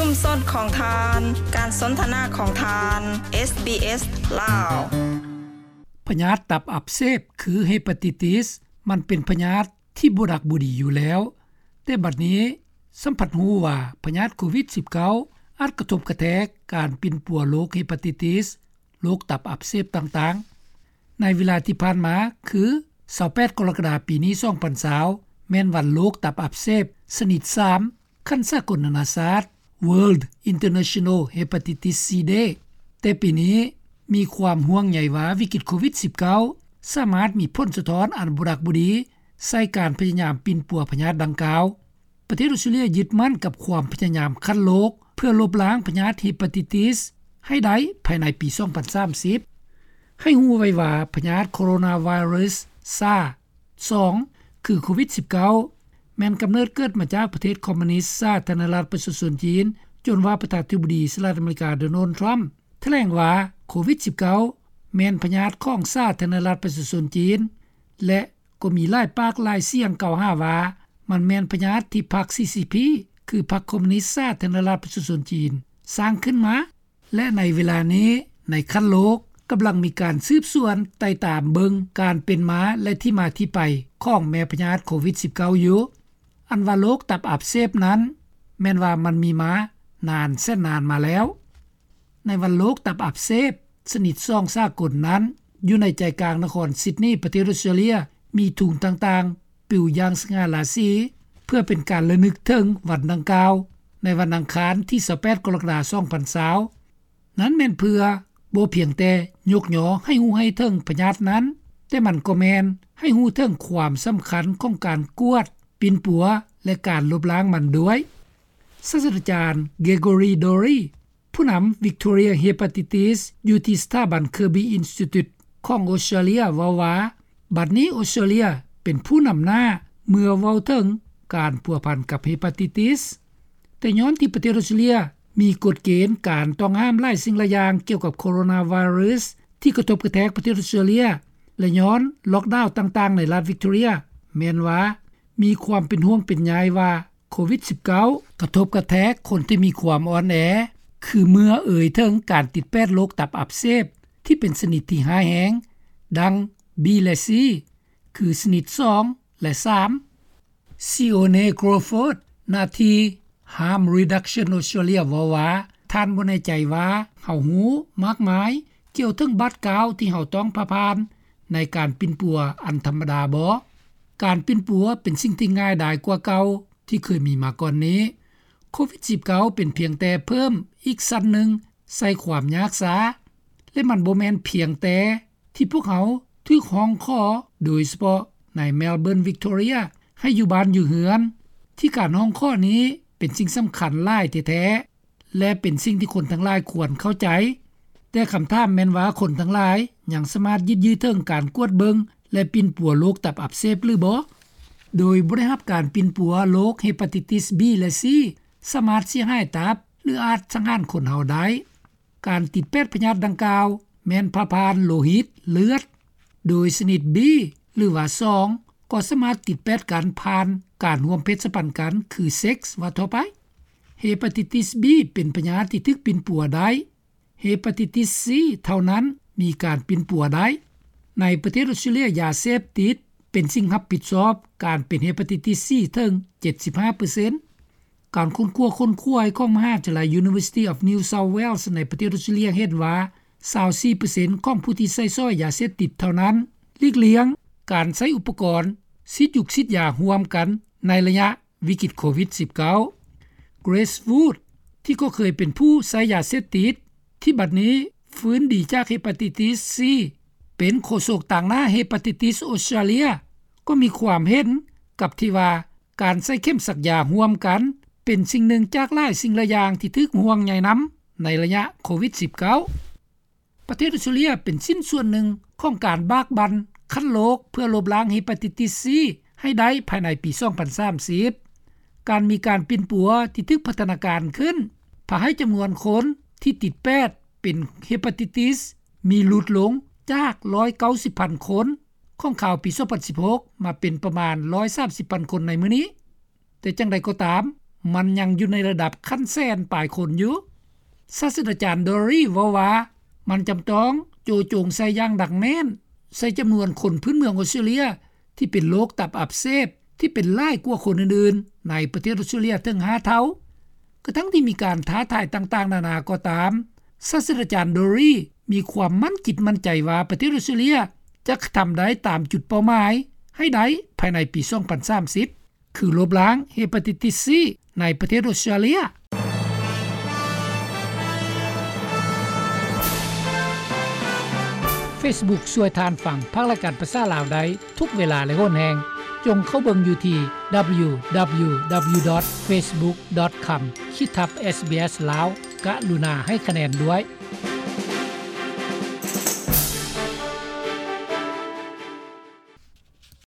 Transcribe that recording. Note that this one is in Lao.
ຊຸມຊົນຂອງທ່ານ, ການສົນທະນາຂອງທ່ານ, ເອສບີເອສ ລາວ. ພະຍາດຕັບອັກເສບ ຄື Hepatitis ມັນເປັນພະຍາດທີ່ບໍ່ດັກບໍ່ດີຢູ່ແລ້ວ, ແຕ່ບັດນີ້ຊໍ້າພັດຮູ້ວ່າພະຍາດໂຄວິດສິບເກົ້າ ອາດກະທົບກະແທກການປິ່ນປົວໂລກ Hepatitis ໂລກຕັບອັກເສບຕ່າງໆ. ໃນເວລາທີ່ຜ່ານມາ ຄື ຊາວແປດ ກໍລະກະດາ ປີນີ້ ສອງພັນຊາວ ແມ່ນວັນໂລກຕັບອັກເສບຊະນິດສາມ ຂັ້ນສາກົນນານາຊາດ World International Hepatitis C Day, ແຕ່ປີນີ້ມີຄວາມຫ່ວງໃຍວ່າວິກິດໂຄວິດສິບເກົ້າ ສາມາດມີຜົນສະທ້ອນອັນບໍ່ດັກບໍ່ດີໃສ່ການພະຍາຍາມປິ່ນປົວພະຍາດດັ່ງກ່າວ. ປະເທດອອສເຕຣເລັຍຍຶດໝັ້ນກັບຄວາມພະຍາຍາມຂັ້ນໂລກ ເພື່ອລົບລ້າງພະຍາດ Hepatitis ໃຫ້ໄດ້ພາຍໃນປີສອງພັນສາມສິບ. ໃຫ້ຮູ້ໄວ້ວ່າພະຍາດ Coronavirus ຊາ ສອງ ຄືໂຄວິດສິບເກົ້າ ແມ່ນກຳເນີດເກີດມາຈາກປະເທດຄອມມູນິດສາທາລະນະລັດປະຊາຊົນຈີນ, ຈົນວ່າປະທານາທິບໍດີສະຫະລັດອາເມລິກາ ໂດນັລ ທຣຳ ຖະແຫຼງວ່າໂຄວິດສິບເກົ້າ ແມ່ນພະຍາດຂອງສາທາລະນະລັດປະຊາຊົນຈີນ ແລະ ກໍມີຫຼາຍປາກຫຼາຍສຽງກ່າວຫາວ່າ ມັນແມ່ນພະຍາດທີ່ພັກ CCP ຄືພັກຄອມມູນິດສາທາລະນະລັດປະຊາຊົນຈີນ ສ້າງຂຶ້ນມາ. ແລະ ໃນເວລານີ້ໃນຂັ້ນໂລກ ກຳລັງມີການສືບສວນໄຕ່ຕາມເບິ່ງການເປັນມາ ແລະ ທີ່ມາທີ່ໄປຂອງແມ່ພະຍາດໂຄວິດສິບເກົ້າຢູ່. ອັນວ່າໂລກຕັບອັກເສບນັ້ນ ແມ່ນວ່າມັນມີມານານແສນນານມາແລ້ວ. ໃນວັນໂລກຕັບອັກເສບຊະນິດສອງສາກົນນັ້ນ, ຢູ່ໃນໃຈກາງນະຄອນຊິດນີ ປະເທດອອສເຕຣເລັຍ ມີທຸງຕ່າງໆປິວຢ່າງສະຫງ່າລາສີ ເພື່ອເປັນການລະນຶກເຖິງວັນດັ່ງກ່າວ ໃນວັນອັງຄານທີຊາວແປດ ກໍລະກະດາ ສອງພັນຊາວ. ນັ້ນແມ່ນເພື່ອບໍ່ພຽງແຕ່ຍົກຍໍໃຫ້ຮູ້ໃຫ້ເຖິງພະຍາດນັ້ນ, ແຕ່ມັນກໍແມ່ນໃຫ້ຮູ້ເຖິງຄວາມສຳຄັນຂອງການກວດ, ປິ່ນປົວ ແລະ ການລົບລ້າງມັນດ້ວຍ. ສາດສະດາຈານ Gregory Dorrie ຜູ້ນຳ Victoria Hepatitis ຢູ່ທີ່ສະຖາບັນ Kirby Institute ຂອງອອສເຕຣເລັຍ ເວົ້າວ່າ ບັດນີ້ອອສເຕຣເລັຍເປັນຜູ້ນຳໜ້າເມື່ອເວົ້າເຖິງການພົວພັນກັບ Hepatitis. ແຕ່ຍ້ອນທີ່ປະເທດອອສເຕຣເລັຍມີກົດເກນການຕ້ອງຫ້າມຫຼາຍສິ່ງຫຼາຍຢ່າງກ່ຽວກັບ Coronavirus ທີ່ກະທົບກະແທກປະເທດອອສເຕຣເລັຍ ແລະ ຍ້ອນລ໊ອກດາວຕ່າງໆໃນລັດ Victoria ແມ່ນວ່າມີຄວາມເປັນຫ່ວງເປັນໃຍວ່າ ໂຄວິດສິບເກົ້າ ກະທົບກະແທກຄົນທີ່ມີຄວາມອ່ອນແອ ຄືເມື່ອເອີ່ຍເຖິງການຕິດແປດໂລກຕັບອັກເສບທີ່ເປັນຊະນິດທີ່ຮ້າຍແຮງ ດັ່ງ B ແລະ C ຄືຊະນິດສອງ ແລະ ສາມ. Sione Crawford ໜ້າທີ່ Harm Reduction Australia ເວົ້າວ່າ ທ່ານບໍ່ແນ່ໃຈວ່າເຮົາຮູ້ມາກມາຍກ່ຽວເຖິງບາດກ້າວທີ່ເຮົາຕ້ອງຜ່າຜ່ານໃນການປິ່ນປົວອັນທຳມະດາບໍ? ການປິ່ນປົວເປັນສິ່ງທີ່ງ່າຍດາຍກວ່າເກົ່າ ທີ່ເຄີຍມີມາກ່ອນນີ້. ໂຄວິດສິບເກົ້າ ເປັນພຽງແຕ່ເພີ່ມອີກຊັ້ນໜຶ່ງໃສ່ຄວາມຍາກຊ້າ ແລະ ມັນບໍ່ແມ່ນພຽງແຕ່ທີ່ພວກເຮົາຖືກຮ້ອງຂໍ ໂດຍສະເພາະໃນ Melbourne Victoria ໃຫ້ຢູ່ບ້ານຢູ່ເຮືອນ ທີ່ການຮ້ອງຂໍນີ້ເປັນສິ່ງສຳຄັນຫຼາຍແທ້ໆ ແລະ ເປັນສິ່ງທີ່ຄົນທັງຫຼາຍຄວນເຂົ້າໃຈ. ແຕ່ຄຳຖາມແມ່ນວ່າຄົນທັງຫຼາຍຍັງສາມາດຍຶດຍືເຖິງການກວດເບິ່ງ ແລະ ປິ່ນປົວໂລກຕັບອັກເສບຫຼືບໍ່? ໂດຍບໍ່ໄດ້ຮັບການປິ່ນປົວໂລກ Hepatitis B ແລະ C ສາມາດເສຍຫາຍຕັບ ຫຼື ອາດສັງຫານຄົນເຮົາໄດ້. ການຕິດແປດພະຍາດດັ່ງກ່າວແມ່ນຜ່າຜ່ານໂລຫິດ, ເລືອດ, ໂດຍຊະນິດ B ຫຼືວ່າ ສອງ ກໍສາມາດຕິດແປດກັນຜ່ານການຮ່ວມເພດສະພັນກັນ ຄື ເຊັກ ວ່າທົ່ວໄປ. Hepatitis B ເປັນພະຍາດທີ່ຖືກປິ່ນປົວໄດ້. Hepatitis C ເທົ່ານັ້ນມີການປິ່ນປົວໄດ້. ໃນປະເທດອອສເຕຣເລັຍ ຢາເສບຕິດເປັນສິ່ງຮັບຜິດຊອບການເປັນ Hepatitis C ເຖິງ ເຈັດສິບຫ້າເປີເຊັນ. ການຄົ້ນຄວ້າ ຄົ້ນຄວາຍຂອງມະຫາວິທະຍາໄລ University of New South Wales ໃນປະເທດອອສເຕຣເລັຍເຫັນວ່າ ຊາວສີ່ເປີເຊັນຂອງຜູ້ທີ່ໃຊ້ສອຍຢາເສບຕິດເທົ່ານັ້ນຫຼີກລ່ຽງການໃຊ້ອຸປະກອນສີດຢູກສີດຢາຮ່ວມກັນໃນໄລຍະວິກິດໂຄວິດສິບເກົ້າ. Grace Wood ທີ່ກໍເຄີຍເປັນຜູ້ໃຊ້ຢາເສບຕິດ ທີ່ບັດນີ້ຟື້ນດີຈາກ Hepatitis C ເປັນໂຄສົກຕາງໜ້າ Hepatitis Australia ກໍມີຄວາມເຫັນກັບທີ່ວ່າ ການໃຊ້ເຂັມສັກຢາຮ່ວມກັນ ເປັນສິ່ງໜຶ່ງຈາກຫຼາຍສິ່ງຫຼາຍຢ່າງທີ່ຖືກຫ່ວງໃຍນຳໃນໄລຍະໂຄວິດສິບເກົ້າ. ປະເທດອອສເຕຣເລັຍເປັນຊິ້ນສ່ວນໜຶ່ງຂອງການບາກບັ່ນຂັ້ນໂລກເພື່ອລົບລ້າງ Hepatitis C ໃຫ້ໄດ້ພາຍໃນປີສອງພັນສາມສິບ. ການມີການປິ່ນປົວທີ່ຖືກພັດທະນາການຂຶ້ນ ພາໃຫ້ຈຳນວນຄົນທີ່ຕິດແປດເປັນ Hepatitis ມີຫຼຸດລົງຈາກຮ້ອຍເກົ້າສິບພັນຄົນ ຂອງຄາວປີສອງພັນສິບຫົກ ມາເປັນປະມານຮ້ອຍສາມສິບພັນຄົນໃນມື້ນີ້. ແຕ່ຈັ່ງໃດກໍຕາມ, ມັນຍັງຢູ່ໃນລະດັບຂັ້ນແສນປາຍຄົນຢູ່. ສາດສະດາຈານ Dory ເວົ້າວ່າ ມັນຈຳຕ້ອງໂຈະຈົງໃສ່ຢ່າງໜັກແໜ້ນ ໃສ່ຈຳນວນຄົນພື້ນເມືອງອອສເຕຣເລັຽ ທີ່ເປັນໂລກຕັບອັກເສບ ທີ່ເປັນຫຼາຍກວ່າຄົນອື່ນໆ ໃນປະເທດອອສເຕຣເລັຽເຖິງຫ້າເທົ່າ. ກະທັ່ງທີ່ມີການທ້າທາຍຕ່າງໆນານາກໍຕາມ, ສາດສະດາຈານ Dory ມີຄວາມໝັ້ນຈິດໝັ້ນໃຈວ່າ ປະເທດອອສເຕຣເລັຽຈະກະທຳໄດ້ຕາມຈຸດເປົ້າໝາຍໃຫ້ໄດ້ພາຍໃນປີສອງພັນສາມສິບ ຄືລົບລ້າງ Hepatitis C ໃນປະເທດອອສເຕຣເລັຽ. Facebook ຊ່ວຍທ່ານຟັງພາກລາຍການພາສາລາວໄດ້ທຸກເວລາ ແລະ ໂຫນແຮງ. ຈົ່ງເຂົ້າເບິ່ງຢູ່ທີ່ www.facebook.com/sbslao ກະລຸນາໃຫ້ຄະແນນດ້ວຍ.